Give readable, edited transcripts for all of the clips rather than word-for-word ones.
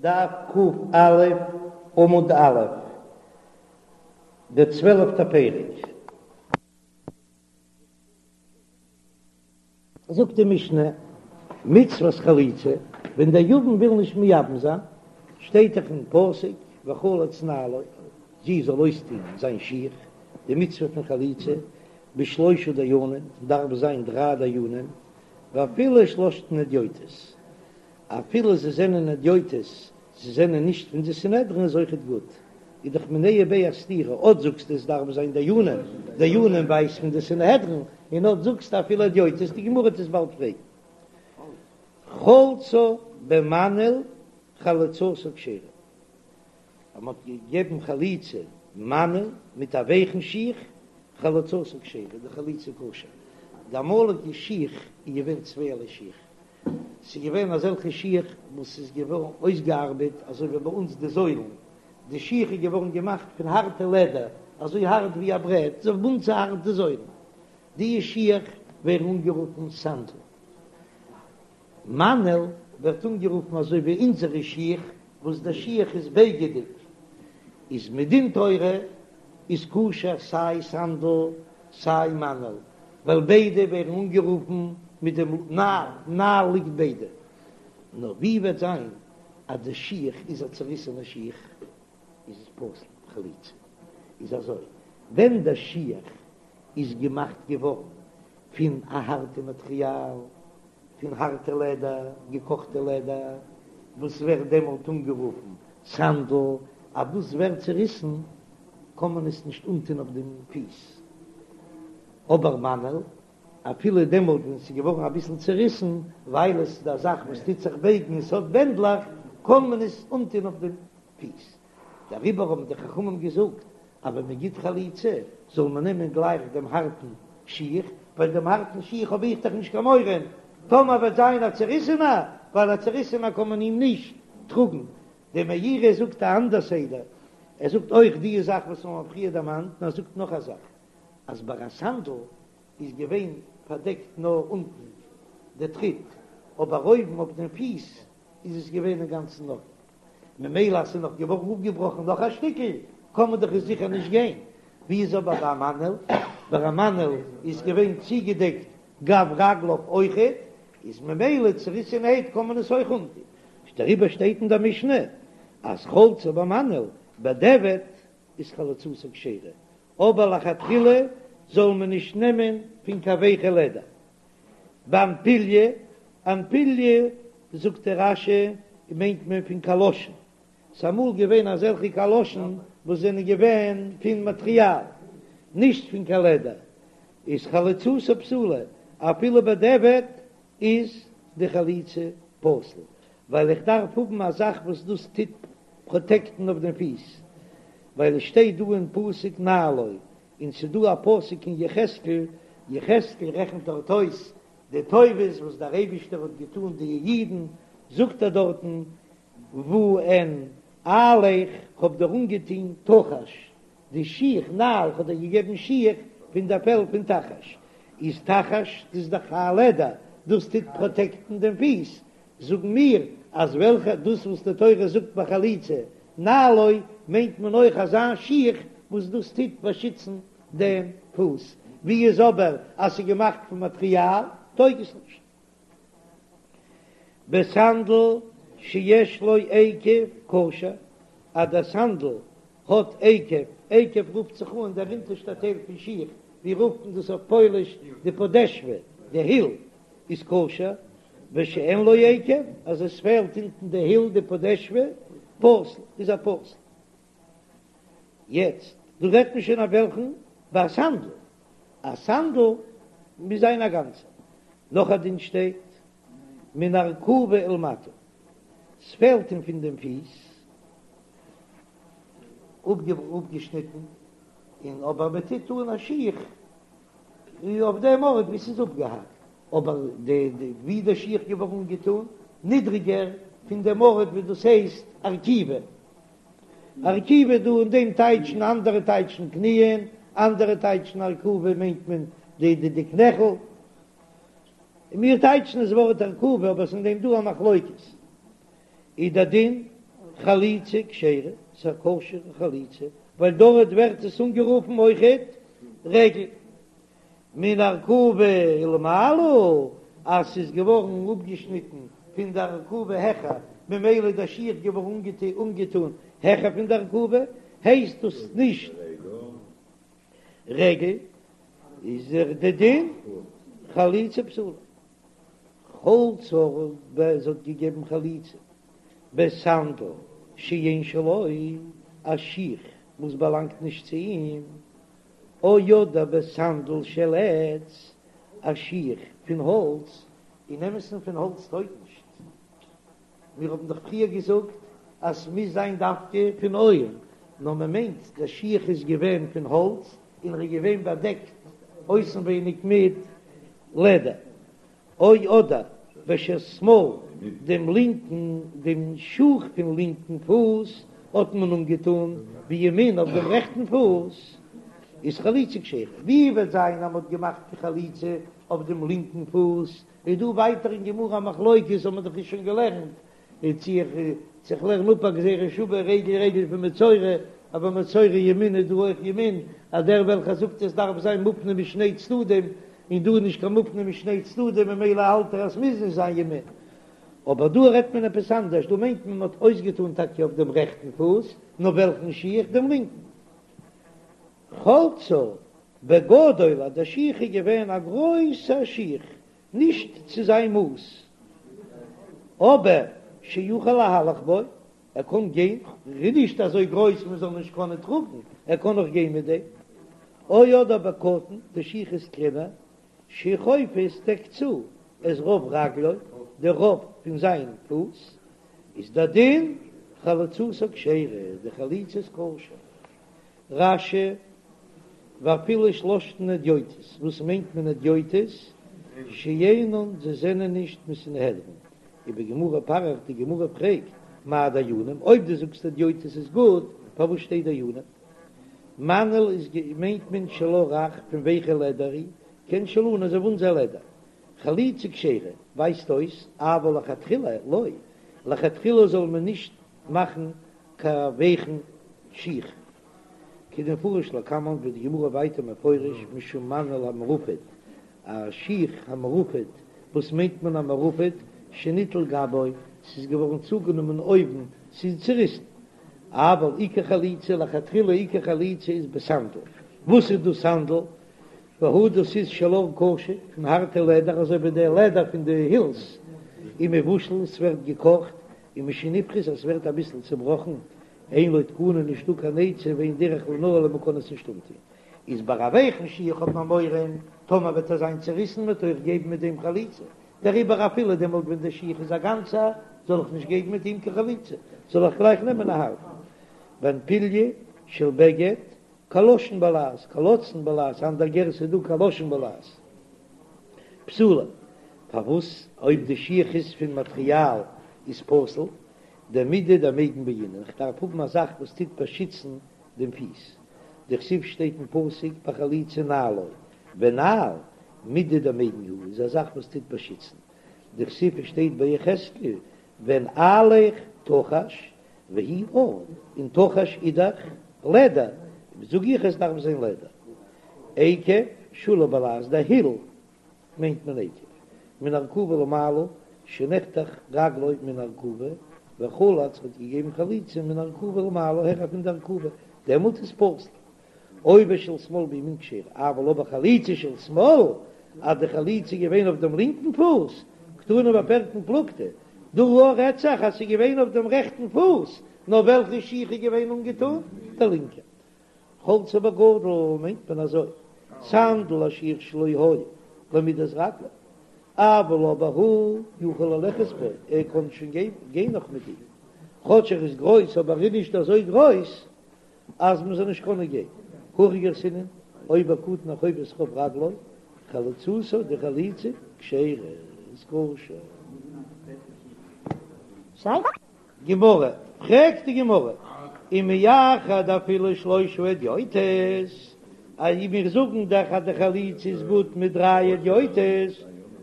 דף ק"א עמוד א', דער צוועלפטער פרק. זאגט די משנה, מצות חליצה, ווען דער יבם וויל נישט מייבם זיין, שטייט דאך אין פסוק וחלץ נעלו, זי זאל אויסטון זיין שיך, די מצוה פון חליצה, בשלושה דיינים, דארף זיין דריי דיינים, ואפילו שלשתן הדיוטות, אפילו זיי זענען הדיוטות, זיי זענען נישט פון די סנהדרין איז אויכעט גוט, איז דאך מיניה וביה א סתירה, אט זאגסטו עס דארף זיין דיינים, דיינים ווייזט פון די סנהדרין, און אט זאגסטו אפילו הדיוטות, די גמרא וועט עס באלד פרעגן. חלצה במנעל חליצתה כשרה, אז מען האט געגעבן חליצה מנעל מיט א ווייכן שיך, חליצתה כשרה, די חליצה כשר, די אמאליגע שיך איז געווען צווייערליי שיך, ס'איז געווען אזעלכע שיך וואס איז געווארן אויסגעארבעט אזוי ווי ביי אונז די זוילן, די שיך איז געווארן געמאכט פון הארטע לעדער, אזוי הארט ווי א ברעט, אזוי ווי ביי אונז הארט די זוילן, די שיך ווערן אנגערופן סנדל. מנעל ווערט אנגערופן אזוי ווי אונזערע שיך וואס די שיך איז בייגעדיג, איז מדין תורה איז כשר סיי סנדל סיי מנעל, ווייל ביידע ווערן אנגערופן מיט דעם נעל, נעל ליגט ביידע. נאר ווי וועט זיין אז די שיך איז א צוריסענע שיך איז עס פסול חליצה. איז אזוי, ווען די שיך איז געמאכט געווארן פון א הארטע מאטריאל, פון הארטע לעדער, געקאכטע לעדער, וואס ווערט דעמאלט אנגערופן סנדל, אז דאס ווערט צוריסן קען מען עס נישט אנטון אויף דעם פיס, אבער מנעל, אפילו דעמאלט ווען עס איז געווארן אביסל צוריסן, ווייל עס איז א זאך וואס טוט זיך בייגן און עס האט בענדלעך, קען מען עס אנטון אויף דעם פיס. דעריבער האבן די חכמים געזאגט אז ווען מען גיט חליצה זאל מען נעמען גלייך דעם הארטן שיך, ווייל דעם הארטן שיך האב איך דאך נישט קיין מורא טאמער וועט זיין א צעריסענער, ווייל א צעריסענער קען מען אים נישט טראגן. דער מאירי זאגט א אנדער סדר, ער זאגט אויך די זאך וואס מיר האבן פריער דערמאנט, נאר ער זאגט נאך א זאך, אז ביי א סנדל איז געווען פארדעקט נאר אונטן די טריט, אבער אויבן אויף דעם פיס איז עס געווען אינגאנצן אפן, ממילא אז ס'איז נאך געווארן אפגעבראכן נאך א שטיקל, קען מען דאך עס זיכער נישט גיין. ווי איז אבער ביי א מנעל? ביי א מנעל איז געווען צוגעדעקט גב רגליו אויכעט, איז ממילא צוריסענערהייט קען מען עס אויך אנטון. דעריבער שטייט אין דער משנה אז חלצה במנעל בדיעבד איז חליצתה כשרה, אבער לכתחילה זאל מען נישט נעמען פון קיין ווייכע לעדער. באנפיליא, אנפיליא זאגט דער רש"י מיינט מען פון קאלאשן, ס'איז אמאל געווען אזעלכע קאלאשן וואס זענען געווען פון מאטריאל, נישט פון קיין לעדער, איז חליצתה פסולה, אפילו בדיעבד איז די חליצה פסול, ווייל איך דארף האבן א זאך וואס דאס טוט פראטעקטן אויף דעם פיס, ווייל עס שטייט דא אין פסוק נעלו, און ס'איז דא א פסוק אין יחזקאל, יחזקאל רעכנט דארט אויס די טובות וואס דער אייבישטער האט געטאן די אידן, זאגט ער דארטן, ואנעלך, כ'האב דיר אנגעטון תחש, די שיך, נעל, כ'האב דיר געגעבן שיך פון דער פעל פון תחש, איז תחש דאס איז דאך א לעדער, דאס טוט פראטעקטן דעם פיס, זאגן מיר אז וועלכע דאס וואס די תורה זאגט ביי חליצה נעלו מיינט מען אויך אזא שיך וואס דאס טוט באשיצן דעם פוס, ווי איז אבער אז ס'איז געמאכט פון מאטריאל טויג עס נישט. בסנדל שיש לו עקב כשר, אז דער סנדל האט עקב, עקב רופט זיך אן דער אונטערשטער טייל פון שיך, ווי רופט מען דאס אויף פויליש די פאדעשווע, די היל איז כשר, ושאין לו עקב, אז עס פעלט אונטן די היל די פאדעשווע, פסול, איז ער פסול. יעצט, דא רעדט מען שוין אויף וועלכן? ביי א סנדל, א סנדל מוז זיין א גאנצע. נאך א דין שטייט, מן ארכובה ולמטה, ס'פעלט אים פון דעם פיס, אפגעשניטן, און אבער מען טוט אן א שיך אויף דעם ארט ווי ס'איז אפגעהאקט, אבער די די ווי די שיך געווארן אנגעטון נידריגער פון דעם ארט ווי דאס הייסט ארכובה, ארכובה דא אין דעם טייטשן אנדערע טייטשן קניען, אנדערע טייטשן ארכובה מיינט מען די די די קנעכל, און מיר טייטשן עס ווארט ארכובה אבער עס איז אין דעם דא א מחלוקת, איז דער דין. חליצה כשרה, ס'איז א כשר'ע חליצה, ווייל דארט ווערט עס אנגערופן אויכעט רגל. מן ארכובה ולמעלה, אז ס'איז געווארן אפגעשניטן פון די ארכובה העכער, ממילא איז דער שיך געווארן אנגעטון העכער פון די ארכובה, הייסט דאס נישט רגל, איז דער דין חליצה פסולה. חלצה זי האט געגעבן חליצה בסנדל שאין שלו, א שיך וואס באלאנגט נישט צו אים, או אדער בסנדל של עץ, א שיך פון האלץ, אין אמת'ן פון האלץ טויג נישט, מיר האבן דאך פריער געזאגט אז ס'מוז זיין דווקא פון עור, נאר מען מיינט דער שיך איז געווען פון האלץ און ער איז געווען באדעקט אויסנווייניג מיט לעדער. או אדער בשל שמאל, דעם לינקן, דעם שוך פון לינקן פוס האט מען אנגעטאן בימין אויף דעם רעכטן פוס, איז חליצה כשרה. ווי וועט זיין אז מען האט געמאכט די חליצה אויף דעם לינקן פוס, איז דא ווייטער אין גמרא א מחלוקת, האט מען דאך שוין געלערנט, און צו איך צו איך לערן אפ א גזירה שווה רגל רגל פון מצורע, אבער מצורע ימין איז דא אויך ימין, אז דער וועלכער זאגט עס דארף זיין מופנה משני צדדים, און דא איז נישט קיין מופנה משני צדדים ממילא האלט ער אז ס'מוז נישט זיין ימין. אבער דא רעדט מען עפעס אנדערש, דא מיינט מען מ'האט אויסגעטאן טאקע אויף דעם רעכטן פוס, נאר וועלכן שיך? דעם לינקן. חלצה בגדול אז דער שיך איז געווען א גרויסער שיך, נישט צו זיין מאס, אבער שיכול להלך בו, ער קען גיין, ער איז נישט אזוי גרויס מען זאל נישט קענען טראגן, ער קען נאך גיין מיט דעם, או אדער בקטן, די שיך איז קלענער, שחופה עס דעקט צו את רוב רגלו, די רוב פון זיין פוס, איז דער דין חליצתה כשרה, די חליצה איז כשר. רש"י, ואפילו שלשתן הדיוטות, וואס מיינט מען הדיוטות? שאינן, זיי זענען נישט מסנהדרין. ובגמרא פריך, די גמרא פרעגט, מאי דיינים, אויב דו זאגסט הדיוטות איז גוט, פארוואס שטייט דיינים? מנעל איז מיינט מען של עור רך פון ווייכע לעדער, כעין שלנו אזוי ווי אונזער לעדער. חליצה כשרה, ווייזט אויס, אבל לכתחילה לא, לכתחילה זאל מען נישט מאכן קיין ווייכן שיך. כדמפרש לקמן ווי די גמרא ווייטער מפרש משום מנעל המרופט, א שיך המרופט, וואס מיינט מען א מרופט? שניטל גבו, ס'איז געווארן צוגענומען אויבן, ס'איז צוריסן. אבל עיקר חליצה לכתחילה עיקר חליצה איז בסנדל. וואס איז דאס סנדל? והוא דאס איז של עור קשה, פון הארטע לעדער אזוי ווי די לעדער פון די הילס, ומבושל, ס'ווערט געקאכט, ומשנפחת אז ס'ווערט אביסל צובראכן, אין לו תקנה נישטא קיין עצה ואין דרך לנעלו מ'קען עס נישט אנטון, איז ביי א ווייכן שיך האט מען מורא טאמער וועט ער זיין צוריסן מ'וועט אויך געבן מיט דעם חליצה, דעריבער אפילו דעמאלט ווען דער שיך איז א גאנצער זאל איך נישט געבן מיט אים קיין חליצה, זאל איך גלייך נעמען א הארטן. ואנפיליא של בגד קלשון בלע"ז, קלצון בלע"ז, אנדער גירסא איז דא קלשון בלע"ז. פסולה, פארוואס אויב די שיך איז פון מאטריאל איז פסול, דמידי דמיגן בעינן, איך דארף האבן א זאך וואס טוט באשיצן דעם פיס, דכתיב שטייט אין פסוק ביי חליצה נעלו, ונעל מידי דמיגן הוא איז א זאך וואס טוט באשיצן, דכתיב שטייט ביי יחזקאל ונעליך תחש והוא עור, און תחש איז דאך לעדער, זאג איך עס דארף זיין לעדער. עקב, שולי בלע"ז, די היל מיינט מען עקב, מן ארכובה ולמעלה, שנחתך רגלו מן ארכובה, וחלץ האט געגעבן חליצה מן ארכובה ולמעלה העכער פון די ארכובה, דעמאלט איז פסול. או בשל שמאל בימין כשרה, אבל אבער חליצה של שמאל, אז די חליצה איז געווען אויף דעם לינקן פוס, קתני בפירקין פלוגתא, דא רעדט זיך אז ס'איז געווען אויף דעם רעכטן פוס, נאר וועלכע שיך איז געווען אנגעטון? דער לינקער. חלצה בגדול מיינט מען אזוי, סנדל א שיך שלא היה למידת רגלו, אבל אבער הוא יכול ללכת בו, ער קען שוין גיין נאך מיט אים, כאטש ער איז גרויס אבער ער איז נישט אזוי גרויס אז מען זאל נישט קענען גיין. הכי גרסינן, או בקטן החופה את רוב רגלו, חליצתה די חליצה כשרה איז כשר. גמרא, פרעגט די גמרא, ומאחר דאפילו שלושה הדיוטות, אז מיר זאגן דאך אז די חליצה איז גוט מיט דריי הדיוטות,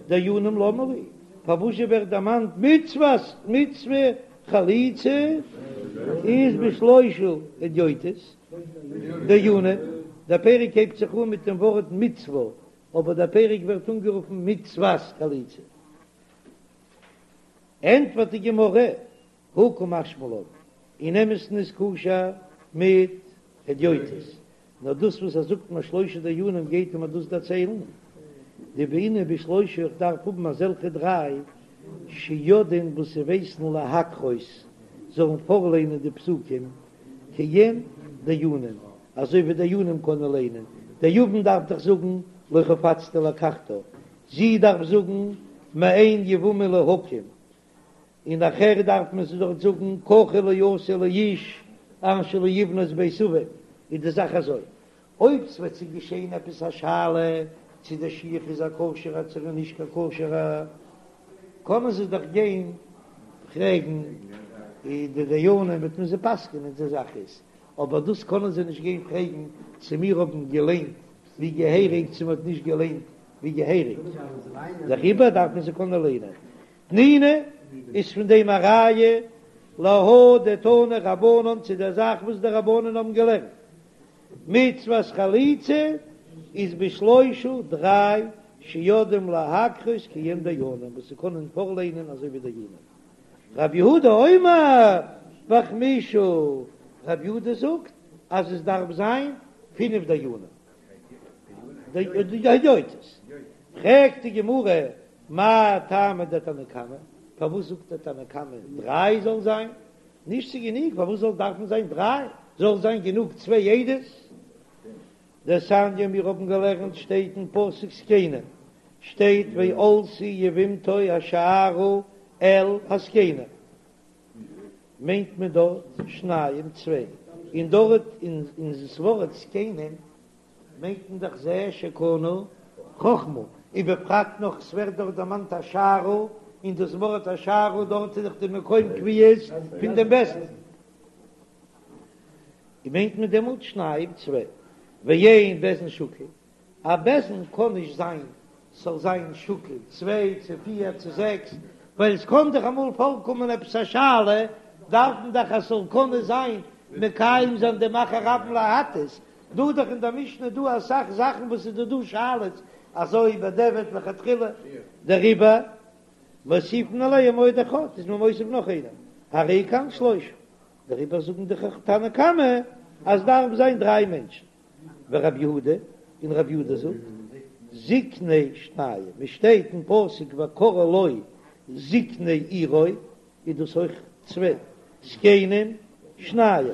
דיינים למה לי, פארוואס ווערט דערמאנט מצוות מצוה חליצה? איז בשלושה הדיוטות דיינים, דער פרק הייבט זיך אן מיט דעם ווארט מצוה, אבער דער פרק ווערט אנגערופן מצוות חליצה. ענטפערט די גמרא, הא קא משמע לן, אין אמת'ן איז כשר מיט הדיוטות, נאר דאס וואס ער זאגט מיר שלושה דיינים גייט ער מיר דאס דערציילן, דבעינן בשלושה איך דארף האבן אזעלכע דריי שיודעין וואס זיי ווייסן להקרות זאלן פארליינען די פסוקים כעין דיינים אזוי ווי דיינים קענען ליינען, דער יבם דארף דאך זאגן לא חפצתי לקחתה, זי דארף זאגן מאן יבמה להקים, און נאכער דארף מען זי דארט זאגן ככה לא יעשה לאיש אשר לא יבנה את בית אביו, איז די זאך אזוי, אויב ס'וועט זיך געשען עפעס א שאלה צו דער שיך איז א כשר'ער צו ער איז נישט קיין כשר'ער, קענען זיי דאך גיין פרעגן די דיינים וועט מען זיי פסק'ענען די זאך איז, אבער דאס קענען זיי נישט גיין פרעגן צו מיר האבן געליינט ווי געהעריג צו מ'האט נישט געליינט ווי געהעריג, דעריבער דארף מען זיי קענען ליינען. תנינא איז פון דעם א ראיה להא דתנו רבנן צו דער זאך וואס די רבנן האבן געלערנט, מצוות חליצה איז בשלושה דריי שיודעים להקרות כעין דיינים וואס זיי קענען פארליינען אזוי ווי דיינים. רב יהודה אומר בחמישה, רב יהודה זאגט אז עס דארף זיין פינף דיינים הדיוטות. פרעגט די גמרא מאי טעמא דתנא קמא, פארוואס זאגט דער תנא קמא דריי זאל זיין? נישט ס'איז גענוג, פארוואס זאל דארפן זיין דריי? זאל זיין גענוג צוויי עדות? דתניא מיר האבן געלערנט שטייט אין פסוק זקנים שטייט ועלתה יבמתו השערה אל הזקנים מיינט מען דארט שניים צוויי און דארט אין דאס ווארט זקנים מיינט מען דאך זה שקנה חכמה, ובפרט נאך ס'ווערט דארט דערמאנט השערה, און דאס ווארט השערה דארט איז דאך די מקום קביעות פון דעם בית דין, און מיינט מען דעמאלט שניים צוויי, ואין בית דין שקול, א בית דין קען נישט זיין ס'זאל זיין שקול צוויי צו פיר צו זעקס, ווייל עס קען דאך אמאל פארקומען עפעס א שאלה, דארף מען דאך אז ס'זאל קענען זיין מקיים זיין דעם אחר רבים להטות, דא דאך אין דער משנה דא אסאך זאכן וואס איז דא דא שאלות אזוי בדיעבד לכתחילה דעריבער מוסיפין עליהם עוד אחד איז מען מוסיף נאך איינעם הרי כאן שלושה דעריבער זאגן די תנא קמא אז דארף זיין דריי מענטשן ורב יהודה און רב יהודה זאגט זקני שניים עס שטייט אין פסוק וקראו לו זקני עירו איז דאס אויך צוויי זקנים שניים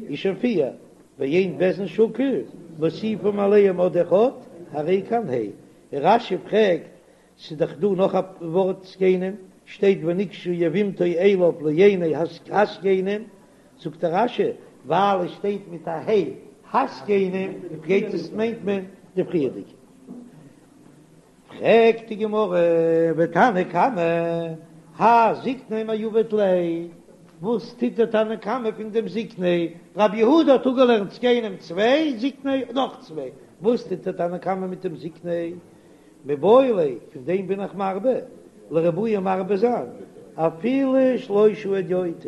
איז שוין פיר, ואין בית דין שקול מוסיפים עליהם עוד אחד הרי כאן ה' רש"י פרעגט ס'איז דאך דא נאך א ווארט זקנים שטייט ונגשה יבמתו אליו לעיני הזקנים זאגט דער רש"י ווייל עס שטייט מיט א ה' הזקנים גייט עס מיינט מען די פריערדיגע. פרעגט די גמרא, ותנא קמא, האי זקני מאי עביד ליה, וואס טוט דער תנא קמא פון דעם זקני, רבי יהודה האט אפגעלערנט זקנים צוויי, זקני נאך צוויי, וואס טוט דער תנא קמא מיט דעם זקני? מיבעי ליה, פון דעם בין איך מרבה, לרבויי מרבה זיין, אפילו שלושה הדיוטות,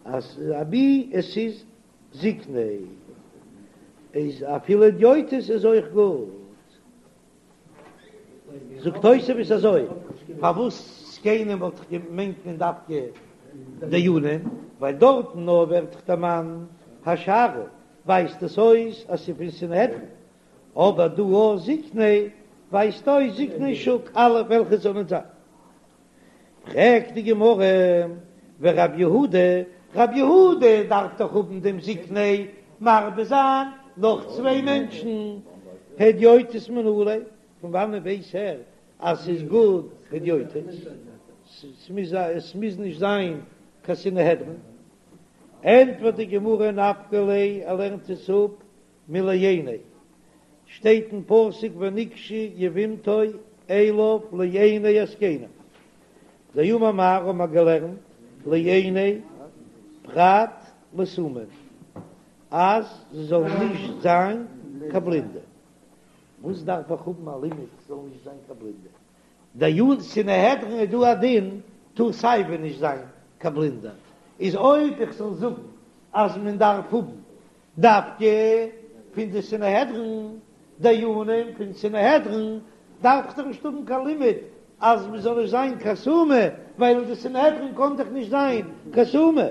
אז אבי עס איז זקני, איז אפילו הדיוטות איז אויך גוט. זאגט תוספות אזוי, פארוואס זקנים וואלט איך געמיינט מען דווקא דיינים, ווייל דארטן נאר ווערט דאך דערמאנט השערה, ווייזט עס אויס אז ס'איז פון סנהדרין, אבער דא אויך זקני ווייזט אויס זקני שוק אלע וועלכע זאלן זיין. פרעגט די גמרא, ורב יהודה, רב יהודה דארף דאך האבן דעם זקני מרבה זיין נאך צוויי מענטשן, הדיוטות מנא ליה, פון וואנען ווייס ער אז ס'איז גוט הדיוטות? עס מוז נישט זיין קיין סנהדרין. ענטפערט די גמרא, נפקא ליה, ער לערנט עס אפ מלעיני, שטייט אין פסוק ונגשה יבמתו אליו לעיני הזקנים, דאמר מר האבן מיר געלערנט לעיני פרט לסומים אז זיי זאלן נישט זיין קיין בלינדע, וואס דארף איך האבן א לימוד זאלן נישט זיין קיין בלינדע? דיין סנהדרין איז דא א דין טאר סייווי נישט זיין קיין בלינדער. איז אויב איך זאל זאגן אז מען דארף האבן דווקא פון די סנהדרין, דיינים פון סנהדרין, דארף איך דאך נישט האבן קיין לימוד אז מען זאל נישט זיין קיין סומא, ווייל אין די סנהדרין קען דאך נישט זיין קיין סומא.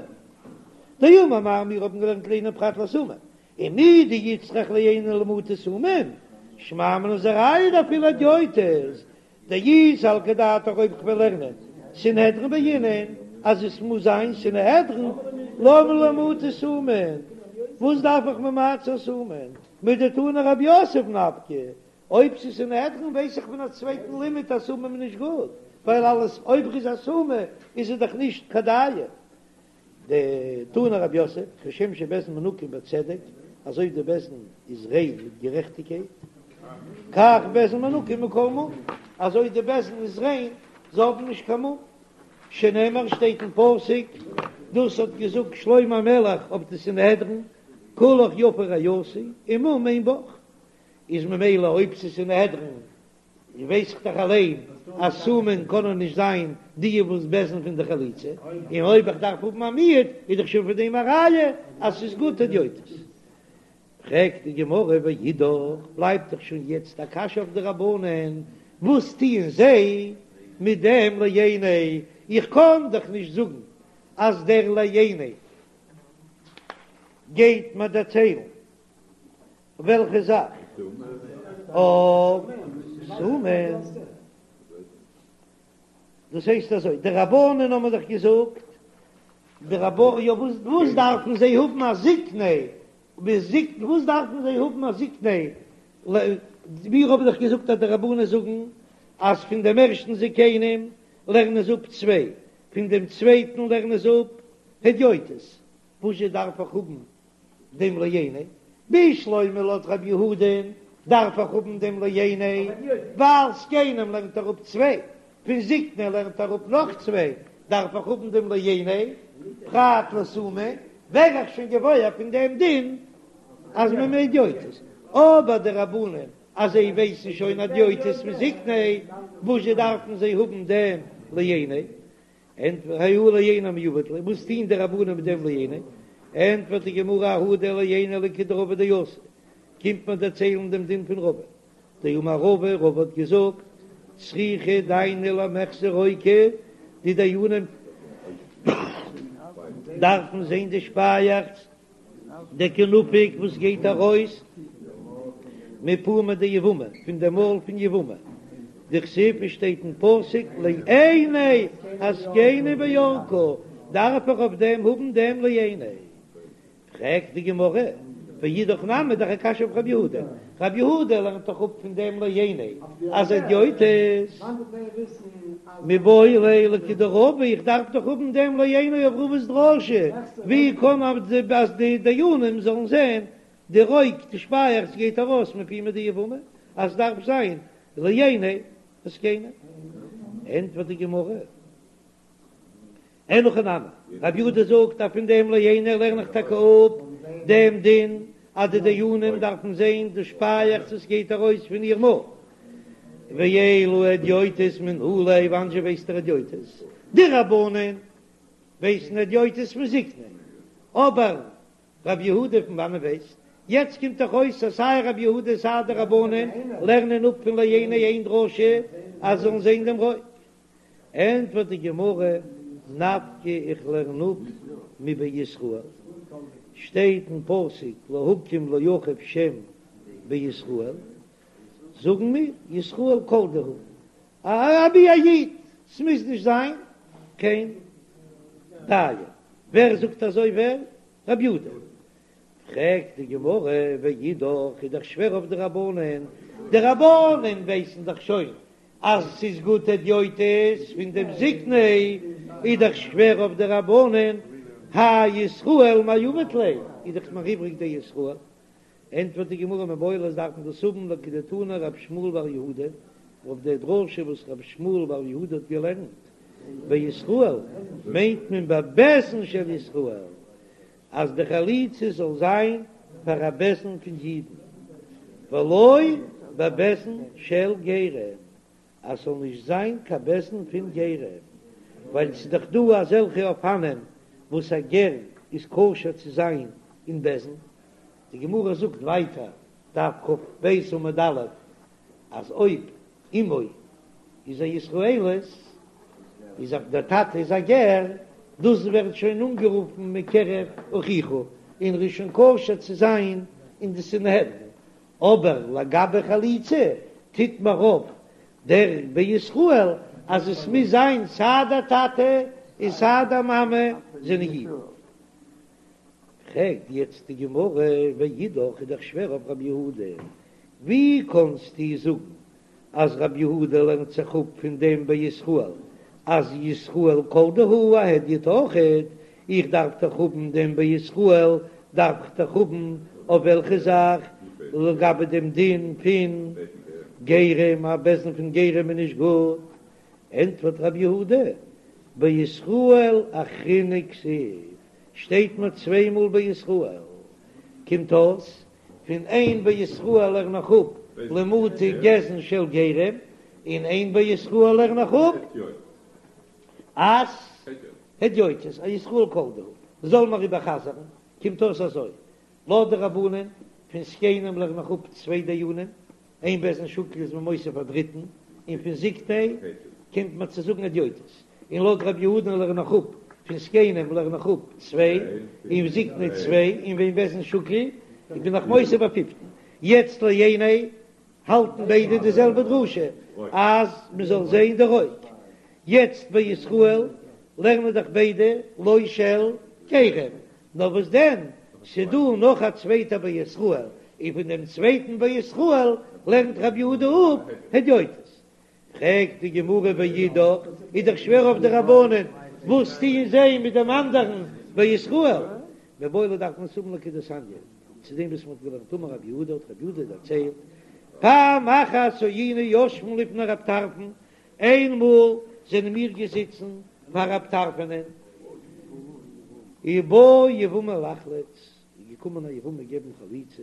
דאמר מר מיר האבן געלערנט לעיני פרט לסומא, ומדאיצטריך לעיני למעוטי סומין, שמע מינה איז א ראיה דאפילו הדיוטות, דאי סלקא דעתך אויב כ'וועל לערנען סנהדרין בעינן אז עס מוז זיין סנהדרין למה לי למעוטי סומין, וואס דארף איך ממעט זיין סומין, מדתני רב יוסף נפקא, אויב ס'איז סנהדרין ווייס איך פון א צווייטן לימוד אז סומין איז נישט גוט, ווייל אלעס אויב ר'איז א סומא איז ער דאך נישט קיין דיין. דתני רב יוסף, כשם שבית דין מנוקים בצדק, אזוי די בית דין איז ריין מיט גערעכטיגקייט, כך בית דין מנוקים מכל מום, אזוי די בית דין איז ריין, זיי האבן נישט קיין מום. שנאמר שטייט אין פסוק, דאס האט געזאגט שלמה המלך אויף די סנהדרין, כולך יפה רעיתי ומום אין בך, איז ממילא אויב ס'איז סנהדרין ווייס איך דאך אליין אז סומין קענען נישט זיין די וואס בית דין פון די חליצה, און אויב איך דארף האבן א מיעוט איז דאך שוין פון דעם א ראיה אז ס'איז גוט הדיוטות. פרעגט די גמרא ואידך, בלייבט דאך שוין יעצט א קשיא אויף די רבנן, וואס טוען זיי מיט דעם לעיני, איך קען דאך נישט זאגן אז דער לעיני גייט מיר דערציילן וועלכע זאך? אויף סומין. דאס הייסט אזוי, די רבנן האבן דאך געזאגט, די רבנן, יא וואס וואס דארפן זיי האבן א זקני, וואס דארפן זיי האבן א זקני, מיר האבן דאך געזאגט אז די רבנן זאגן אז פון דעם ערשטן זקנים לערנען זיי אפ צוויי, פון דעם צווייטן לערנען זיי אפ הדיוטות, וואזשע דארף איך האבן דעם לעיני, בשלמא לויט רב יהודה'ן דארף איך האבן דעם לעיני, ווייל זקנים לערנט ער אפ צוויי, פון זקני לערנט ער אפ נאך צוויי, דארף איך האבן דעם לעיני, פרט לסומין, ווער איך שוין געוואויר פון דעם דין אז מען מיינט הדיוטות, אבער די רבנן אז זיי ווייסן שוין הדיוטות מזקני, וואזשע דארפן זיי האבן דעם לעיני? ענטפערט ההוא לעיני מאי עביד ליה, וואס טוהן די רבנן מיט דעם לעיני? ענטפערט די גמרא ההוא דער לעיני לכדרבא דאתא, קומט מען דערציילן דעם דין פון רבא, דאמר רבא, רבא האט געזאגט, צריכי דייני למיחזי רוקא, די דיינים דארפן זען די שפייעכץ דקא נפיק וואס גייט ארויס מפומא דיבמה, פון די מויל פון יבמה, דכתיב עס שטייט אין פסוק לעיני הזקנים בירקה, דארף איך אויף דעם האבן דעם לעיני. פרעגט די גמרא, ואידך נמי דאך א קשיא אויף רב יהודה, רב יהודה לערנט דאך אפ פון דעם לעיני אז הדיוטות מיבעי ליה לכדרבא, איך דארף דאך האבן דעם לעיני אויף רבא'ס דרשה, ווי קען אז די דיינים זאלן זען די רוק די שפייעכץ גייט ארויס מפומא דיבמה, אז דארף זיין לעיני הזקנים. ענטפערט די גמרא. אין הכי נמי, רב יהודה זאגט אז פון דעם לעיני לערן איך טאקע אפ דעם דין אז די דיינים דארפן זען די שפייעכץ וואס גייט ארויס פון איר מויל. ואלא הדיוטות מנא ליה, וואנען זשע ווייסט ער הדיוטות? די רבנן ווייסן הדיוטות פון זקני, אבער רב יהודה פון וואנען ווייסט? יעצט קומט דאך אויס אז סיי רב יהודה סיי די רבנן לערנען אפ פון לעיני איין דרשה אז זאלן זען דעם רוק. ענטפערט די גמרא, נפקא איך לערן אפ מבישראל, שטייט אין פסוק להקים לאחיו שם בישראל, זאגן מיר ישראל כל דהו, אבי א איד, ס'מוז נישט זיין קיין דיין, ווער זאגט אזוי ווער? רב יהודה. פרעגט די גמרא, ואידך איז דאך שווער אויף די רבנן, די רבנן ווייסן דאך שוין אז ס'איז גוט הדיוטות פון דעם זקני, איז דאך שווער אויף די רבנן, האי ישראל מאי עביד ליה, איז דאך נאך איבריג דער ישראל. ענטפערט די גמרא מיבעי ליה דארף מען דאס האבן לכדתני רב שמואל בר יהודה, אויף דער דרשה וואס רב שמואל בר יהודה האט געלערנט, בישראל מיינט מען בבית דין של ישראל, אז די חליצה זאל זיין פאר א בית דין פון אידן, ולא בבית דין של גרים, אז ס'זאל נישט זיין קיין בית דין פון גרים, ווייל ס'איז דאך דא אזעלכע אופנים. וואס א גר איז כשר צו זיין אין בית דין? די גמרא זאגט ווייטער, דף כ"ב עמוד א', אז אויב אמו איז א ישראלית, איז אויב דער טאטע איז א גר, דאס ווערט שוין אנגערופן מקרב אחיך, און ר'איז שוין כשר צו זיין אין די סנהדרין, אבער לגבי חליצה טוט מיר אויף דער בישראל אז עס מוז זיין סיי דער טאטע און סיי דער מאמע זענען אידן. פרעגט יעצט די גמרא, ואידך איז דאך שווער אויף רב יהודה, ווי קאנסטו זאגן אז רב יהודה לערנט זיך אפ פון דעם בישראל אז ישראל כל דהו א הדיוט אויכעט, איך דארף דאך האבן דעם בישראל דארף איך דאך האבן אויף וועלכע זאך לגבי דעם דין פון גרים, א בית דין פון גרים איז נישט גוט, ענטפערט רב יהודה בישראל אחרינא כתיב, שטייט מיר צוויי מאל בישראל, קומט אויס פון איין בישראל לערן איך אפ למעוטי גזען של גרים, און איין בישראל לערן איך אפ אז הדיוטות, א ישראל כל דהו, זאל מיר איבערחזר'ן, קומט אויס אזוי, לויט די רבנן פון זקנים לערן איך אפ צוויי דיינים, אין בית דין שקול איז מען מוסיף א דריטן, און פון זקני קומט מען צו זאגן הדיוטות, און לויט רבי יהודה'ן לערן איך אפ פון זקנים לערן איך אפ צוויי, און זקני צוויי, און ואין בית דין שקול בין איך מוסיף א פיפטן. יעצט לעיני האלטן ביידע די זעלבע דרשה אז מען זאל זען די רוק. יעצט בישראל לערנען דאך ביידע לא של גרים, נאר וואס דען, ס'דא נאך א צווייטע בישראל, און פון דעם צווייטן בישראל לערנט רבי יהודה אפ הדיוטות. פרעגט די גמרא ואידך, איז דאך שווער אויף די רבנן, וואס טוען זיי מיט דעם אנדערן בישראל? מיבעי ליה דארף מען עס האבן לכדתניא, צו דעם וואס מען האט געלערנט אמר רבי יהודה האט רבי יהודה דערציילט, פעם אחת היינו יושבין לפני רב טרפון, איינמאל זענען מיר געזיצן פאר רב טרפונ'ען, ובאה יבמה לחלוץ, איז געקומען א יבמה געבן חליצה,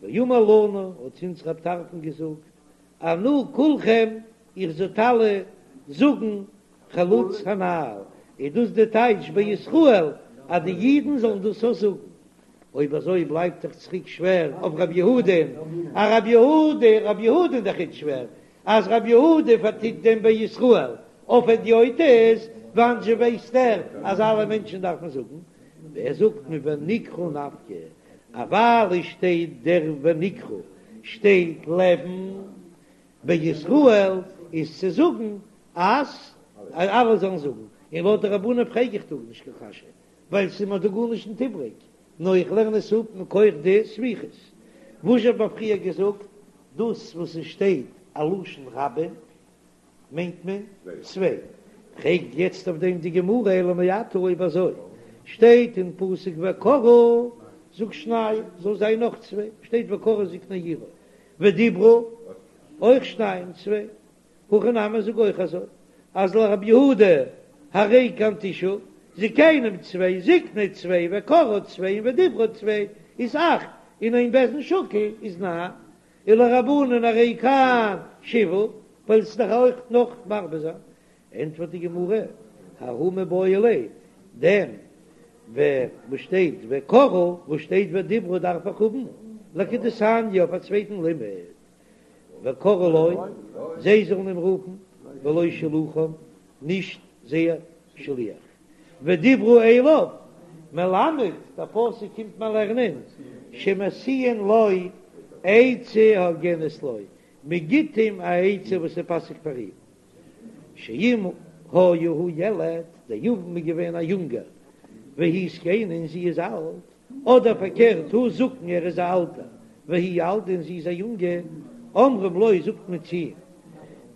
ואמר לנו, האט צו אונז רב טרפון געזאגט, ענו כולכם, איר זאלט אלע זאגן חלוץ הנעל, איז דאס די טייטש בישראל אז די אידן זאלן דאס אויך זאגן? אויב אזוי בלייבט דאך צוריק שווער אויף רב יהודה'ן, א רב יהודה, רב יהודה איז דאך איצט שווער, אז רב יהודה פארטוט דעם בישראל אויף הדיוטות, וואנען זשע ווייסט ער אז אלע מענטשן דארפן זאגן? ווער זאגט מונקרא נפקא? אז ווייל עס שטייט דער ונקרא שטייט לעבן בישראל איז צו זאגן אז אלע זאלן זאגן, און לויט די רבנן פרעג איך דא נישט קיין קשיא ווייל ס'איז מיר דא גארנישט נישט איבריג, נאר איך לערן עס אפ מכח די סמיכות. וואס האט מען פריער געזאגט? דאס וואס עס שטייט א לשון רבים מיינט מען צוויי. פרעגט יעצט אויף דעם די גמרא אלא מעתה אויב אזוי שטייט אין פסוק וקראו זאג שניים זאל זיין נאך צוויי שטייט וקראו זקני עירו ודיברו אויך שניים צוויי הכי נמי זאג אויך אזוי אז לרבי יהודה הרי כאן תשעה זקנים צוויי זקני צוויי וקראו צוויי און ודיברו צוויי איז אכט און אין בית דין שקול איז ניין ולרבנן הרי כאן שבעה ווייל ס'איז דאך אויך נאך מרבה זיין ענטפערט די גמרא ההוא מיבעי ליה דעם וואס שטייט וקראו וואס שטייט ודיברו דארף איך האבן לכדתניא אויף א צווייטן לימוד וקראו לו, זיי זאלן אים רופן, ולא שלוחם, נישט זייער שליח. ודיברו אליו, מלמד, דער פסוק קומט מיר לערנען, שמשיאין לו עצה הוגנת לו, מען גיט אים א עצה וואס איז פאסיג פאר אים. שאם היה הוא ילד, דער יבם איז געווען א יונגער, והיא זקנה און זי איז אלט, אדער פארקערט הוא זקן ער איז א אלטער והיא ילדה און זי איז א יונגע, אומרים לו זאגט מען צו אים,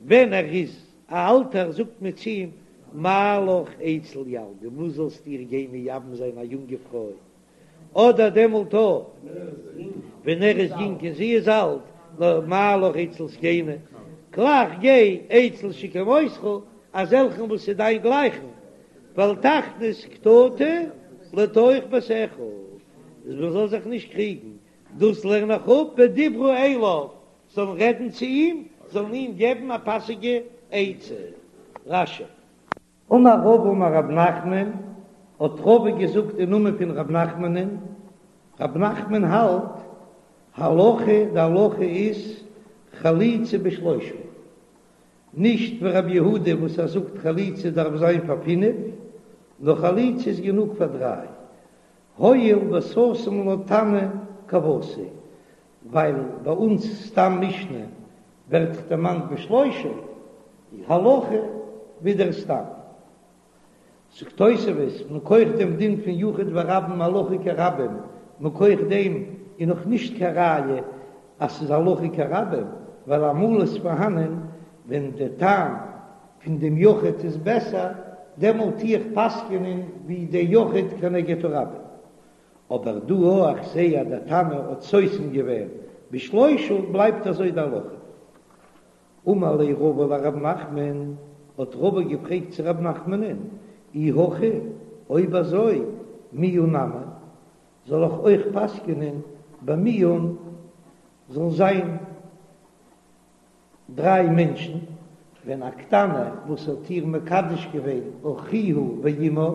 ווען ער איז א אלטער זאגט מען צו אים, מה לך אצל ילדה וואס זאלסטו איר גיין מייבם זיין א יונגע פרוי, אדער דעמאלט אויך ווען ער איז יונג און זי איז אלט, נאר מה לך אצל זקנה, גלייך גיי אצל שכמותך, אזעלכן וואס איז דיין גלייכן, ואל תכניס קטטה לתוך ביתך, אז מען זאל זיך נישט קריגן, דאס לערן איך אפ ודיברו אליו, זאלן רעדן צו אים, זאלן אים געבן א פאסיגע עצה. רש"י. אמר רבא אמר רב נחמן, האט רבא געזאגט אין נאמען פון רב נחמנ'ן, רב נחמן האלט הלכה, די הלכה איז חליצה בשלושה, נישט ווי רב יהודה וואס ער זאגט חליצה דארף זיין פאר פינף, נאר חליצה איז גענוג פאר דריי, הואיל וסתם לה תנא כוותיה, ווייל ביי אונז סתם משנה ווערט דערמאנט בשלושה, הלכה ווי דער סתם. זאגט תוספות, מכח דעם דין פון יחיד ורבים הלכה כרבים, מכח דעם איז נאך נישט קיין ראיה אז ס'איז הלכה כרבים, ווייל אמאל איז פארהאנען ווען די טעם פון דעם יחיד איז בעסער, דעמאלט טו איך פסק'ענען ווי דער יחיד כנגד הרבים. אבער דא אויך איך זעה אז דער תנא האט סותם געווען בשלושה בלייבט אזוי די הלכה. אמר ליה רבא לרב נחמן, האט רבא געפרעגט צו רב נחמנ'ן, אי הכי, אויב אזוי, מיאון נמי, זאל איך אויך פסק'נען ביי מיאון זאל זיין דריי מענטשן, ווען א קטנה וואס האט איר מקדש געווען אחיה ואמה,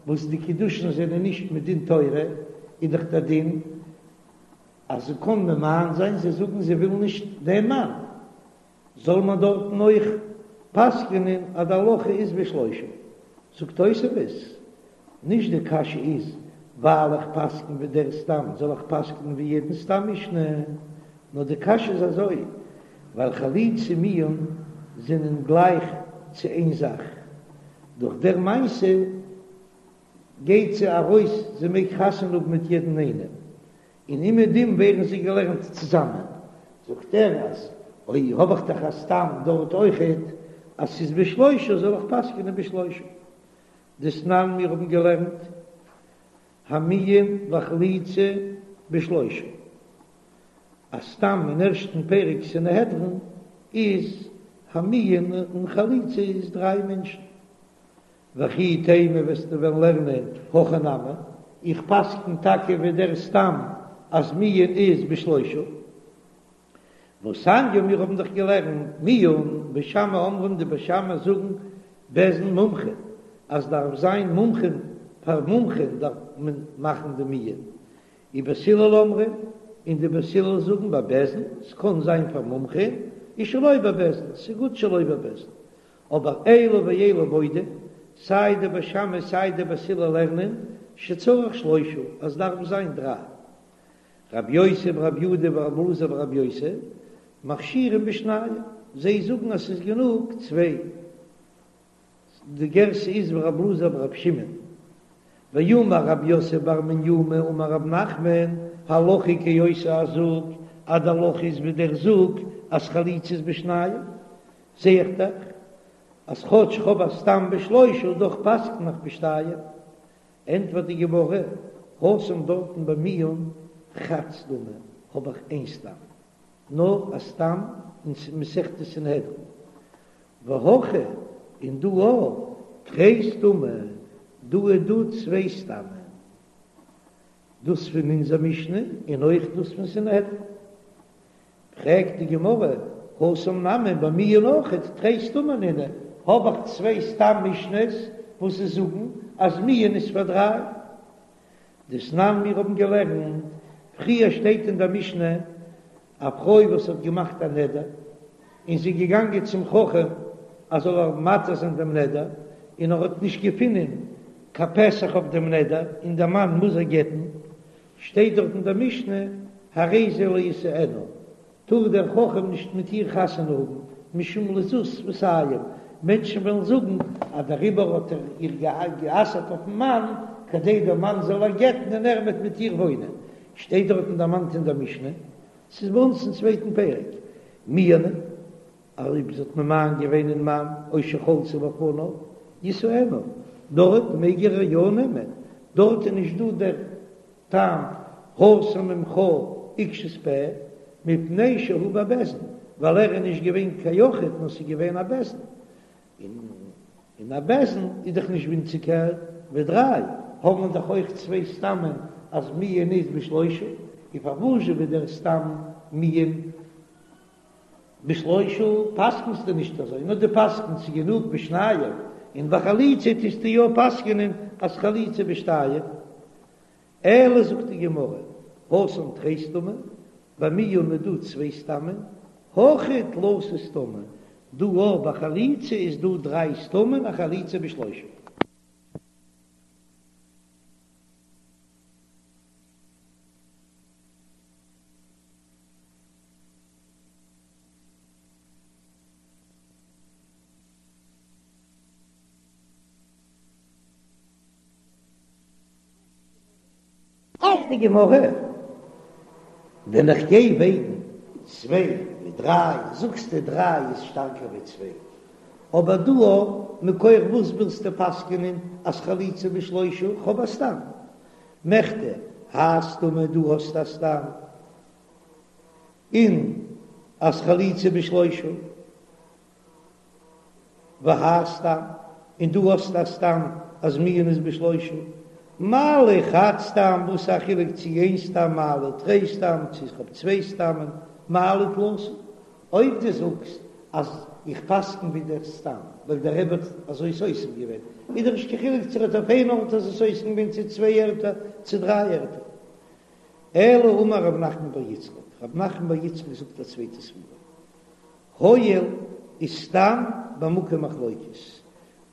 וואס די קידושין זענען נישט מדין תורה, איז דאך דער דין אז זי קען ממאן זיין, זיי זאגן זיי ווילן נישט דעם מאן, זאל מען דארטן אויך פסק'נען אז די הלכה איז בשלושה. זאגט תוספות, נישט די קשיא איז ווייל איך פסק'ן ווי דער סתם זאל איך פסק'נען ווי יעדן סתם משנה, נאר די קשיא איז אזוי, ווייל חליצה ומיאון זענען גלייך צו איין זאך, דורך דער מעשה גייט זי ארויס, זי מעג חתונה האבן מיט יעדן איינעם, און אומעדום ווערן זיי געלערנט צוזאמען, זאגט ער אז אויב האב איך דאך א סתם דארט אויכעט אז ס'איז בשלושה זאל איך פסק'נען בשלושה. דתנן מיר האבן געלערנט המיאון והחליצה בשלושה, א סתם אין ערשטן פרק סנהדרין איז המיאון און חליצה איז דריי מענטשן, וכי תימא וועסטו וועלן לערנען הכי נמי, איך פסקן טאקע ווי דער סתם אז מיאון איז בשלושה. והתניא מיר האבן דאך געלערנט מיאון בית שמאי אומרים די בית שמאי זאגן בית דין מומחה אז דארף זיין מומחים פאר מומחים דארף מען מאכן די מיאון ובית הלל אומרים און די בית הלל זאגן בבית דין ס'קען זיין פאר מומחים ושלא בבית דין ס'גוט שלא בבית דין אבער אלו ואלו מודים, סיי די בית שמאי סיי די בית הלל לערנען שצריך שלושה אז דארף זיין דריי. רבי יוסי ברבי יהודה ורבי אלעזר ברבי יוסי מכשירים בשניים, זיי זאגן אז ס'איז גענוג צוויי. די גירסא איז ורבי אלעזר ברבי שמעון. ואמר רב יוסף בר מניומי אמר רב נחמן, הלכה כאותו הזוג, אז די הלכה איז ווי דער זוג אז חליצה איז בשניים. זע איך דאך אז כאטש כ'האב א סתם בשלושה דאך פסק'ן איך בשתיים. ענטפערט די גמרא, התם דארטן ביי מיאון חד סתמא האב איך איין סתם, נאר א סתם אין מסכת סנהדרין, והכא און דא אויך תרי סתמי, דא איז דא צוויי סתמים, דאס פון אונזער משנה און אויך דאס פון סנהדרין. פרעגט די גמרא, התם נמי ביי מיאון אויכעט תרי סתמי נינהו, האב איך צוויי סתם משנה'ס וואס זיי זאגן אז מיאון איז פאר דריי. דתנן מיר האבן געלערנט, פריער שטייט אין דער משנה א פרוי וואס האט געמאכט א נדר און זי איז געגאנגען צום חכם אז זאל איר מתיר זיין דעם נדר, און ער האט נישט געפונען קיין פתח אויף דעם נדר און דער מאן מוז איר גט'ן, שטייט דארט אין דער משנה, הרי זה לא ישאנה, טאר דער חכם נישט מיט איר חתונה האבן, משום לזות שפתים, מענטשן וועלן זאגן אז דעריבער האט ער איר גע'אסר'ט אויפ'ן מאן, כדי דער מאן זאל איר גט'ן און ער וועט מיט איר וואוינען, שטייט דארטן דערמאנט אין דער משנה, ס'איז ביי אונז אין צווייטן פרק, מיאנה. אויב זי האט ממאן געווען אין מאן או שחלצה בפניו ישאנה, דארט מעג ער איר יא נעמען, דארט איז נישט דא דער טעם הסר ממך עקשות פה מפני שהוא בבית דין, ווייל ער איז נישט געווען קיין יחיד נאר ס'איז געווען א בית דין, און א בית דין איז דאך נישט ווינציגער ווי דריי, האבן מיר דאך אויך צוויי סתמים אז מיאון איז בשלושה, און פארוואזשע ווי דער סתם מיאון בשלושה פסק'נסטו נישט אזוי, נאר דו פסק'נסט ס'איז גענוג בשניים, און ביי חליצה טוסטו יא פסק'נען. אז חליצה בשתיים? אלא זאגט די גמרא, התם תרי סתמי, ביי מיאון איז דא צוויי סתמים, הכא תלתא סתמי, דא אויך ביי חליצה איז דא דריי סתמים א חליצה בשלושה. פרעגט די גמרא, ווען איך גיי וועגן צוויי מיט דריי, זאגסטו דריי איז שטארקער ווי צוויי, אבער דא מכח וואס ווילסטו פסק'נען אז חליצה בשלושה, כ'האב א סתם, מכדי האי סתמא דא האסטו א סתם, און אז חליצה בשלושה. והאי סתם, און דא האסטו א סתם אז מיאון איז בשלושה, מה לי חד סתם, וואס איז א חילוק צו איין סתם מה לי תרי סתם, צו איך האב צוויי סתמים, מה לי תלתא. אויב דו זאגסט אז איך פסקן ווי דער סתם, ווייל דער רבי האט אזוי סותם געווען, איז דאך נישט קיין חילוק צו ער האט אויף איין ארט אזוי סותם געווען צו צוויי ערטער צו דריי ערטער. אלא אמר רב נחמן בר יצחק, רב נחמן בר יצחק זאגט א צווייטע סברא, הואיל איז סתם במקום מחלוקת,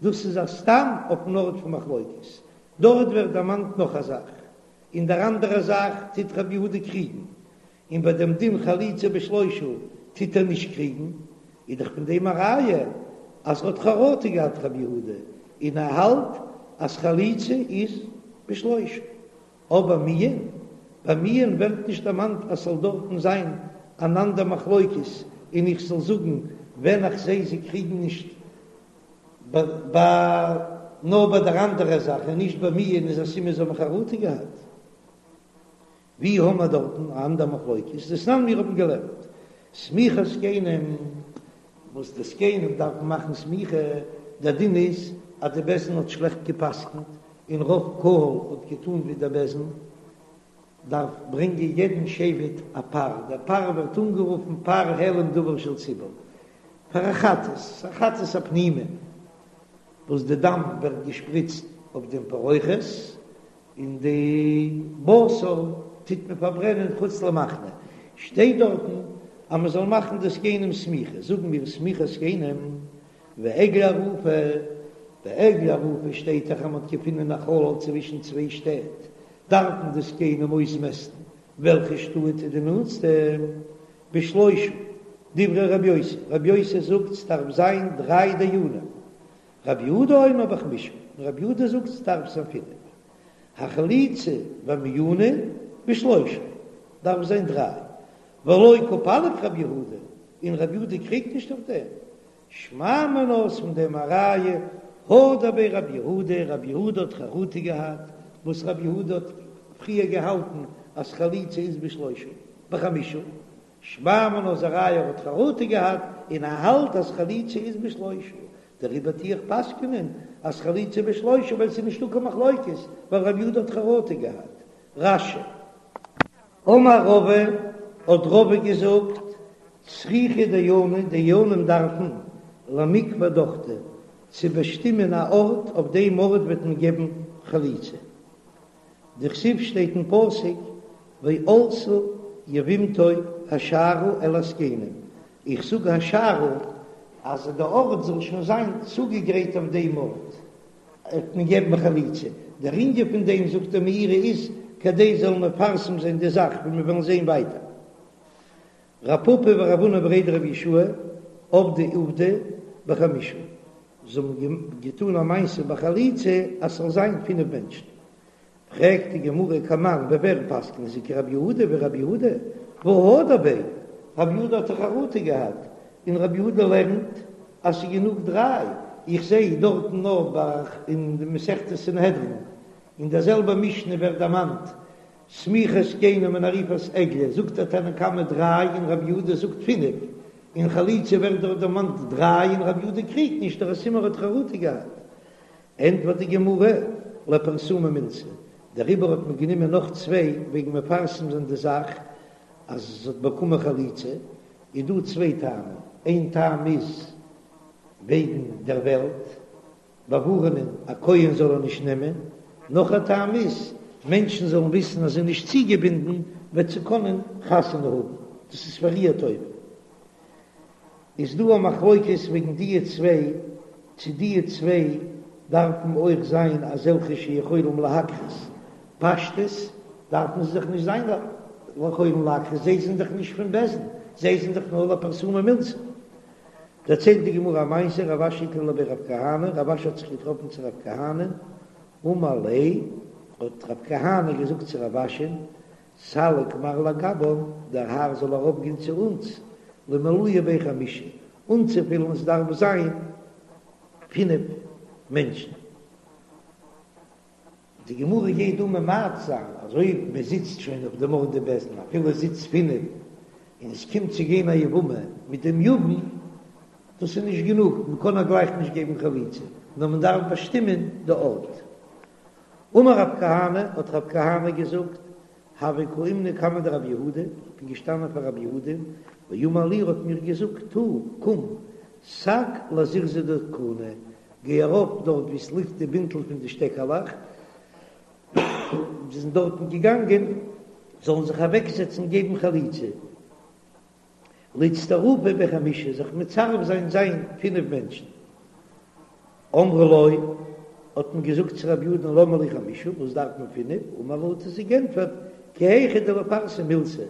דאס איז א סתם אויפן ארט פון מחלוקת, דארט ווערט דערמאנט נאך א זאך, אין דער אנדערע זאך טוט רבי יהודה קריגן, און ביי דעם דין חליצה בשלושה טוט ער נישט קריגן, איז דאך פון דעם א ראיה אז ער האט חרטה געהאט רבי יהודה, און ער האלט אז חליצה איז בשלושה. אבער מיאון, ביי מיאון ווערט נישט דערמאנט אז ס'זאל דארטן זיין אן אנדער מחלוקת און איך זאל זאגן ווען איך זעה זיי קריגן נישט ביי נאר ביי דער אנדערע זאך און נישט ביי מיאון איז א סימן זיי האבן חרטה געהאט. ווי האמער דארטן א אנדער מחלוקת? דתנן מיר האבן געלערנט סמיכת זקנים וואס די זקנים דארפן מאכן סמיכה, דער דין איז אז די בית דין האט שלעכט גע'פסק'נט און רוב קהל האט געטאן ווי דער בית דין, דארף ברענגען יעדן שבט א פר, דער פר ווערט אנגערופן פר העלם דבר של ציבור, פאר א חטאת, א חטאת הפנימי, וואס די דם ווערט געשפריצט אויף דעם פרוכת, און די בשר טוט מען פארברענען חוץ למחנה, שטייט דארטן אז מען זאל מאכן די זקנים סמיכה, זאגן מיר סמיכת זקנים ועגלה ערופה, ביי עגלה ערופה שטייט דאך אז מען האט געפונען א חלל צווישן צוויי שטעט, דארפן די זקנים אויסמעסטן וועלכע שטאט איז די נאנטסטע, בשלושה, דברי רבי יוסי, רבי יוסי זאגט ס'דארף זיין דריי דיינים, רבי יהודה אומר בחמישה, און רבי יהודה זאגט ס'דארף זיין פינף, החליצה והמיאנה בשלושה, דארף זיין דריי, ולא קפליג רבי יהודה, און רבי יהודה קריגט נישט אויף דעם, שמע מינה איז פון דעם א ראיה, הדר ביה רבי יהודה, רבי יהודה האט חרטה געהאט, וואס רבי יהודה האט פריער געהאלטן אז חליצה איז בשלושה, בחמישה, שמע מינה איז א ראיה ער האט חרטה געהאט און ער האלט אז חליצה איז בשלושה, דעריבער טו איך פסק'נען אז חליצה בשלושה ווייל ס'איז נישטא קיין מחלוקת ווייל רבי יהודה האט חרטה געהאט. רש"י. אמר רבא, האט רבא געזאגט, צריכי דייני, דיינים דארפן למיקבע דוכתא, צו באשטימען א ארט, אויף דעם ארט וועט מען געבן חליצה. דכתיב שטייט אין פסוק ועלתה יבמתו השערה אל הזקנים, איך זאג השערה אז די ארט זאל שוין זיין צוגעגרייט אויף דעם ארט וועט מען געבן חליצה, דער ענין פון דעם זאגט דער מאירי איז כדי זאלן מפרסם זיין די זאך ווי מיר וועלן זען ווייטער. רב פפא ורב הונא בריה דרב יהושע עבדי עובדא בחמישה, זיי האבן געטאן א מעשה ביי חליצה אז ס'זאל זיין פינף מענטשן, פרעגט די גמרא כמאן ווי ווער פסק'נען זיי כרבי יהודה ווי רבי יהודה והא הדר ביה, רבי יהודה האט דאך חרטה געהאט, און רבי יהודה לערנט אז ס'איז גענוג דריי, איך זעה דארטן נאר ביי אין די מסכת סנהדרין אין דער זעלבער משנה ווערט דערמאנט סמיכת זקנים און עריפת עגלה זאגט דער תנא קמא דריי און רבי יהודה זאגט פינף, אין חליצה ווערט דארט דערמאנט דריי און רבי יהודה קריגט נישט דער סימן ער האט חרטה געהאט. ענטפערט די גמרא, לפרסומי מילתא, דעריבער האט מען גענומען נאך צוויי וועגן מפרסם זיין די זאך אז זי האט באקומען חליצה, איז דא צוויי טעמים, איין טעם איז וועגן דער וועלט, באווארענען א כהן זאל ער נישט נעמען. נאך א טעם איז, מענטשן זאלן וויסן אז זי איז נישט צוגעבינדן, וועט זי קענען חתונה האבן, דאס איז פאר איר טובה. איז דא א מחלוקת וועגן דיע צוויי, צו דיע צוויי דארפן אויך זיין אזעלכע שיכולים להקרות, פשטות דארפן זיי דאך נישט זיין יכולים להקרות, זיי זענען דאך נישט פון בית דין, זיי זענען דאך נאר לפרסומי מילתא. דערציילט די גמרא א מעשה, רב אשי איקלע לבי רב כהנא, רב אשי האט זיך געטראפן צו רב כהנא, אמר ליה, האט רב כהנא געזאגט צו רב אשי'ן, סליק מר לגבן, דער האר זאל ארויפגיין צו אונז, למלויי בי חמשה, אנצופילן עס דארף זיין פינף מענטשן. די גמרא גייט דא ממעט זיין אז אויב מען זיצט שוין אויף דעם ארט די בית דין אפילו עס זיצט פינף און עס קומט צו גיין א יבמה מיט דעם יבם, דאס איז נישט גענוג, מען קען איר גלייך נישט געבן חליצה, נאר מען דארף באשטימען די ארט. אמר רב כהנא, האט רב כהנא געזאגט, הוה קאימנא קמיה דרב יהודה, איך בין געשטאנען פאר רב יהודה, ואמר לי, ער האט מיר געזאגט, תא, קום, סק לזירזא דכוני, גיי ארויף דארט וואו עס ליגט די בינטל פון די שטעקעלעך, זיי זענען דארטן געגאנגען, זאלן זיך אוועקזעצן געבן חליצה. לאיצטרופי בי חמשה, זיך מצרף זיין זיין פינף מענטשן. אמרו לו, האט מען געזאגט צו רב יהודה'ן למה לי חמשה, וואס דארף מען פינף, אמר להו האט ער זיי גענטפערט, כי היכי דליפרסם מילתא,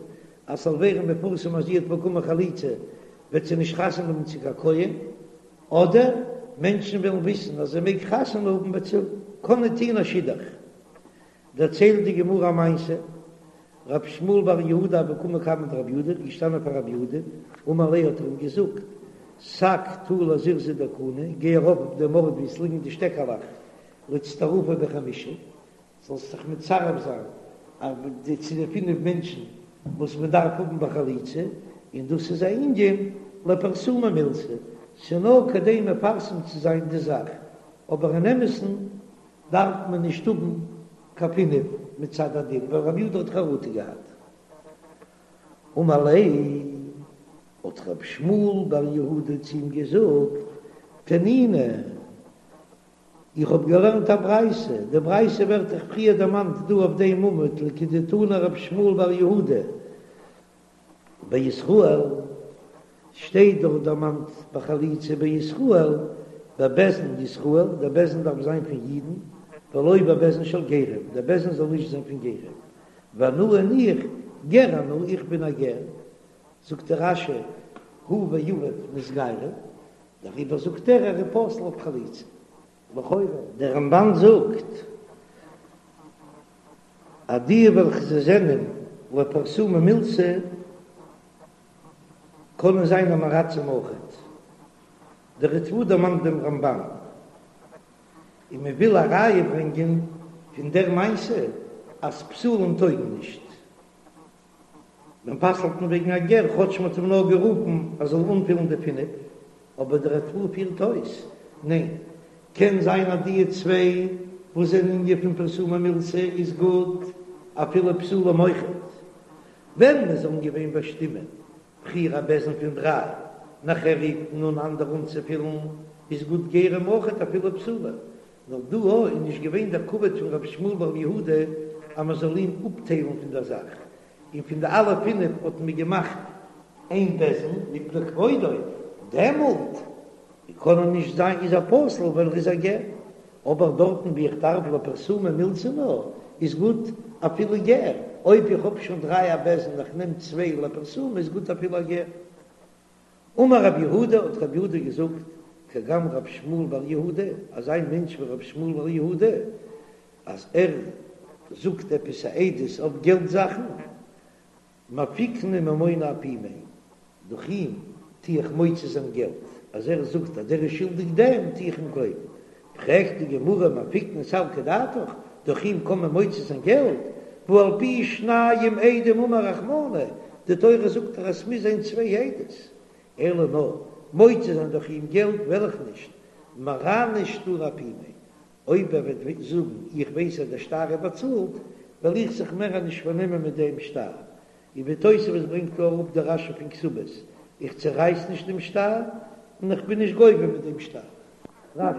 אז ס'זאל ווערן מפורסם אז זי האט באקומען חליצה, וועט זי נישט חתונה האבן צו קיין כהן, אדער מענטשן וועלן וויסן אז זי מעג חתונה האבן וועט זי קענען טוהן א שידוך. דערציילט די גמרא א מעשה, רב שמואל בר יהודה הוה קאי קמיה דרב יהודה, איז געשטאנען פאר רב יהודה, אמר ליה האט ער אים געזאגט, סק תא לזירזא דכוני, גיי ארויף אויף דעם ארט וואו עס ליגן די שטעקעלעך, לאיצטרופי בי חמשה, זאלסט זיך מצרף זיין צו די פינף מענטשן וואס מען דארף האבן ביי חליצה, און דאס איז א ענין לפרסומי מילתא, ס'איז נאר כדי מפרסם צו זיין די זאך, אבער אין אמת'ן דארף מען נישט האבן קיין פינף מצד הדין, ווייל רבי יהודה האט חרטה געהאט. אמר ליה, האט רב שמואל בר יהודה צו אים געזאגט, תנינא, איך האב געלערנט א ברייתא, די ברייתא ווערט דאך פריער דערמאנט דא אויף דעם עמוד, לכדתנא רב שמואל בר יהודה, בישראל שטייט דארט דערמאנט בחליצה בישראל, בבית דין ישראל, דער בית דין דארף זיין פון אידן, ולא בבית דין של גרים, דער בית דין זאל נישט זיין פון גרים, ואנא און איך, גר אנא, איך בין א גר, זאגט דער רש"י, הוא ואביו נתגיירו, דעריבער זאגט ער ער איז פסול אויף חליצה. לכאורה, דער רמב"ן זאגט אז די וועלכע זיי זענען לפרסומי מילתא קענען זיין עם הארצים אויכעט. דער ריטב"א דערמאנט דעם רמב"ן, און מען וויל א ראיה ברענגען פון דער מעשה אז פסולים טויגן נישט. מען פסל'ט אים וועגן א גר, כאטש מען האט אים נאר גערופן ער זאל אנפילן די פינף, אבער דער ריטב"א פירט אויס, ניין, קען זיין אז די צוויי וואס זענען ענין פון פרסומי מילתא איז גוט אפילו פסולים אויכעט, ווען מען זאלן געווען באשטימען פריער א בית דין פון דריי, נאכער רופט מען אן אנדערע אנצופילן, איז גוט גרים אויכעט אפילו פסולים, נאר דא איז נישט געווען דער כבוד פון רבי שמואל בר יהודה אז מען זאל אים אפטיילן פון דער זאך, און פון די אלע פינף האט מען געמאכט איין בית דין מפני כבודו, דעמאלט קען ער נישט זיין איז ער פסול ווייל ער איז א גר, אבער דארטן ווי איך דארף לפרסומי מילתא נאר איז גוט אפילו גר, אויב איך האב שוין דריי א בית דין איך נעם צוויי לפרסומי איז גוט אפילו א גר. אמר רב יהודה, האט רב יהודה געזאגט, כגון רב שמואל בר יהודה, אזא מענטש ווי רב שמואל בר יהודה, אז ער זאגט עפעס א עדות אויף געלט זאכן, מפיקנא ממונא אפומיה, דורך אים טו איך מוציא זיין געלט, אז ער זאגט אז דער איז שולדיג דעם, טו איך אים גלויבן. פרעגט די גמרא מפיקנא סלקא דעתך, דורך אים קען מען מוציא זיין געלט, והא על פי שניים עדים אמר רחמנא, די תורה זאגט דאך אז ס'מוז זיין צוויי עדות, אלא נאר מוציא זיין דורך אים געלט וועל איך נישט, מרענא שטרא אפומיה, אויב ער וועט זאגן איך ווייס אז דער שטר איז באצאלט, וועל איך זיך מער נישט פארנעמען מיט דעם שטר, און ווי תוספות ברענגט קלאר אפ די רש"י פון כתובות, איך צערייס נישט דעם שטר, און איך בין נישט גובה מיט דעם שטר.